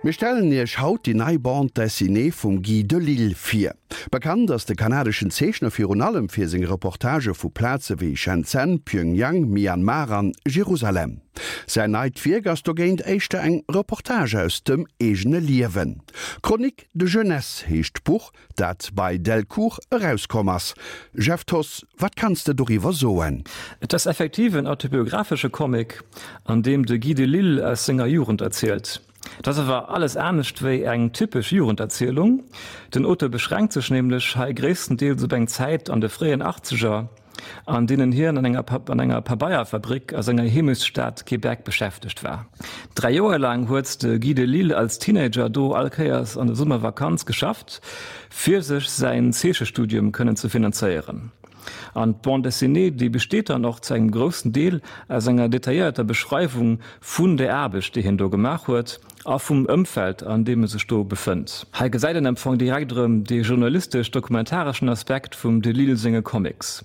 Mir stellen Iech haut déi nei Bande dessinée vum Guy Delisle vir. Bekannt ass de kanadeschen Zeechner virun allem fir seng Reportagë vu Plaze wéi Shenzhen, Pyongyang, Myanmar an Jerusalem. Säin neit Wierk ass dogéint éischter eng Reportage aus dem eegene Liewen. Chroniques de jeunesse heescht d'Buch, dat bei Delcourt erauskomm ass. Jeff Thoss, wat kanns de doriwwer soen? Et ass effektiv en autobiographesche Comic, an deem de Guy Delisle aus senger Jugend erzielt. Et ass awer alles anescht wéi eng typesch Jugenderzielung. Den Auteur beschränkt sech nämlech hei gréisstendeels op eng Zäit an de fréien Achtzeger, an deenen hien an enger an enger Pabeierfabrik a senger Heemechtsstad Québec beschäftegt war. 3 Joer laang huet de Guy Delisle als Teenager do all Kéiers an der Summervakanz geschafft, fir sech säin Zeechestudium kënnen ze finanzéieren. An d'Bande dessinée, déi besteet dann och zu engem groussen Deel aus enger detailléierter Beschreiwung vun der Aarbecht, déi hien do gemaach huet a vum Ëmfeld, an deem e sech do befënnt. Hei gesäit een am Fong direkt erëm dee journalistesch-dokumentareschen Aspekt vum Delisle senge Comics.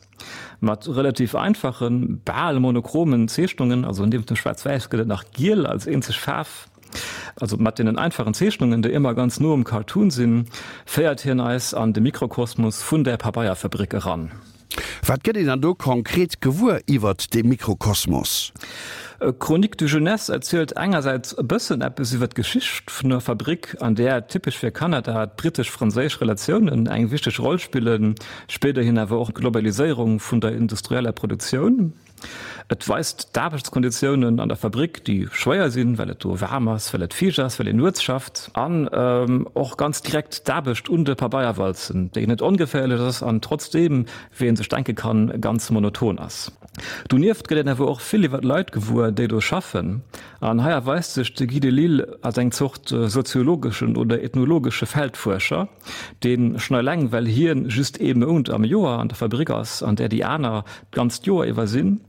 Mat relativ einfachen, bal monochromen Zeechnungen, also niewent dem Schwaarz-Wäiss gëtt et nach Giel als eenzeg Faarf, also mat deenen einfachen Zeechnungen, déi ëmmer ganz no um Cartoon sinn, féiert hien eis an de Mikrokosmos vun der Pabeierfabrik eran. Wat gëtt een dann do konkret gewuer iwwert dee Mikrokosmos? Chroniques de jeunesse erzielt engersäits e bëssen eppes iwwer d'Geschicht vun der Fabrik, an där, typesch fir Kanada, d'brittesch-franséisch Relatiounen eng wichteg Roll spillen, spéiderhin awer och d'Globaliséierung vun der industrieller Produktioun. Et weist d'Aarbechtskonditiounen an der Fabrik, déi schwéier sinn, well et do waarm ass, well et fiicht ass, well een nuets schafft, an och ganz direkt d'Aarbecht un de Pabeierwalzen, déi net ongeféierlech ass an trotzdeem, wéi ee sech denke kann, ganz monoton ass. Donieft gëtt een awer och vill iwwer d'Leit gewuer, déi do schaffen. An hei erweist sech de Guy Delisle als eng Zort soziologeschen oder ethnologesche Feldfuerscher. Deen schon eleng well hien just ee Mount am Joer an der Fabrik ass, an där déi aner d'ganzt Joer iwwer sinn,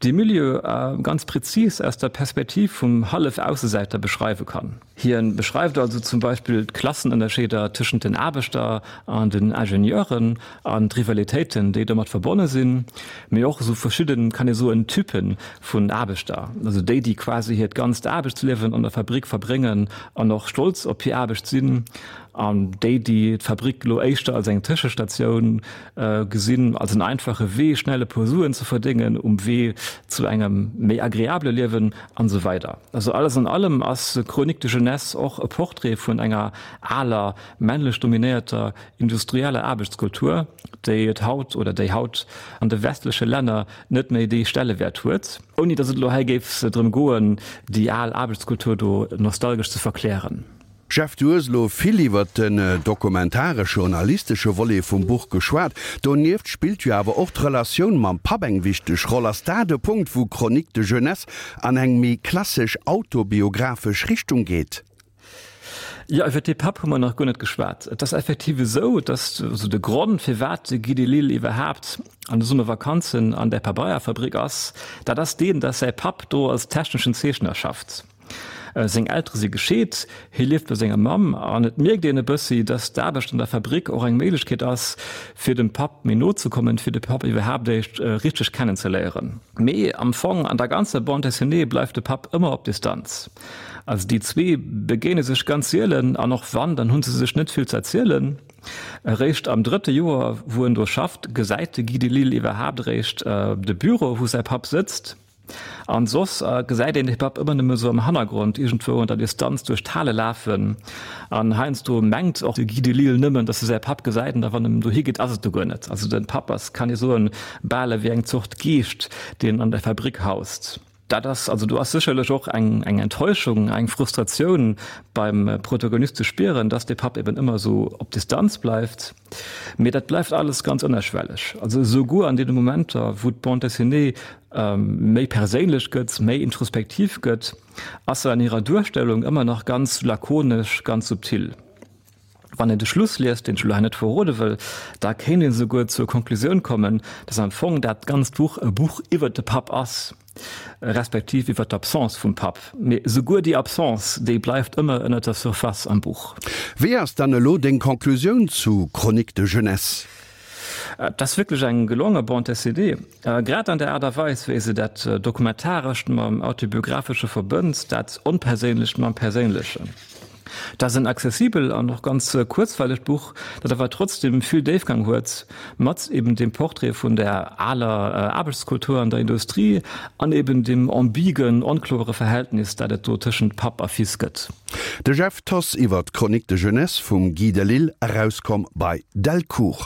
dee Milieu ganz präzis aus der Perspektiv vum Hallef-Aussesäiter beschreiwe kann. Hien beschreift also zum Beispill d'Klassenënnerscheeder tëschent den Aarbechter an den Ingenieuren an d'Rivalitéiten, déi domat verbonne sinn, mee och esou verschidden, kann ee soen, Typen vun Aarbechter, also déi, déi quasi hiert ganzt Aarbechtsliewen an der Fabrik verbréngen an och stolz op hir Aarbecht sinn, An déi, déi d'Fabrik elo éischter als eng Tëschestatioun gesinn, als en einfache Wee, schnell e puer Suen ze verdéngen um Wee zu engem méi agreabele Liewen an esou weider. Also alles an allem ass Chroniques de jeunesse och e Portrait vun enger aler, männlech dominéierter industrieller Aarbechtskultur, déi et haut oder déi haut an de westleche Länner net méi dee Stellewäert huet. Ouni datt et elo hei géif drëm goen, déi al Aarbechtskultur do nostalgesch ze verklären. Jeff, du hues elo vill iwwert den dokumentaresch-journalistesche Volet vum Buch geschwat. Donieft spillt jo awer och d'Relatioun mam Papp eng wichteg Roll. Ass dat e Punkt, wou Chroniques de jeunesse an eng méi klassesch autobiographesch Richtung geet? Jo, iwwer dee Papp hu mer nach guer net geschwat. Et ass effektiv esou, dass also de Grond, firwat de Guy Delisle iwwerhaapt an de Summervakanzen an där Pabeierfabrik ass, dat ass deen, dass säi Papp do als techneschen Zeechner schafft. Seng Eltere si gescheet, hie lieft bei senger Mamm an et mierkt een e bëssi, dass d'Aarbecht an der Fabrik och eng Méiglechkeet ass, fir dem Papp méi no ze kommen, fir de Papp iwwerhaapt éischt richteg kennenzeléieren. Mee am Fong, an der ganzer Bande dessinée bleift de Papp ëmmer op Distanz. Also déi zwee begéine sech ganz sielen an och wann, dann hu se sech net vill ze erzielen. Eréischt am drëtte Joer, wou en do schafft, gesäit de Guy Delisle iwwerhaapt eréischt de Büro, wou säi Papp sëtzt. An soss gesäit een de Papp ëmmer nëmme sou am Hannergrond iergendwou an der Distanz duerch d'Hale lafen. An heiansdo mengt och de Guy Delisle nëmmen, datt e säi Papp gesäit, an da wann en dohi geet, ass et do guer net. Also de Papp ass, kann ee soen, bal ewéi eng Zort Geescht, deen an der Fabrik haust. Dat ass, also do ass sécherlech och eng eng Enttäuschung, eng Frustratioun beim Protagonist ze spieren, datt de Papp eben ëmmer sou op Distanz bleift. Mee dat bleift alles ganz ënnerschwelleg. Also esouguer an deene Momenter, wou d'Bande dessinée méi perséinlech gëtt, méi introspektiv gëtt, ass se an hirer Duerstellung ëmmer nach ganz lakonesch, ganz subtil. Wann een de Schluss liest, deen ech elo hei net verrode wëll, da kéint een esouguer zur Konklusioun kommen, dass am Fong dat ganzt Buch e Buch iwwert de Papp ass. Respektiv iwwer d'Absence vum Papp. Mee souguer déi Absence, déi bleift ëmmer ënner der Surface am Buch. Wéi ass dann elo deng Conclusioun zu Chroniques de jeunesse? Et ass wierklech eng gelonge Bande dessinée, grad an der Aart a Weis, wéi se dat Dokumentarescht mam Autobiographesche verbënnt, dat Onperséinlecht mam Perséinlechen. Dat ass en accessibel an och ganz kuerzweilegt Buch, dat awer trotzdem vill Déifgang huet, mat eben dem Portrait vun der aler Aarbechtskultur an der Industrie an eben dem ambigen, onkloere Verhältnis, dat et do tëschent Papp a Fils gëtt. De Jeff Thoss iwwer d'Chronique de jeunesse vum Guy Delisle, erauskomm bei Delcourt.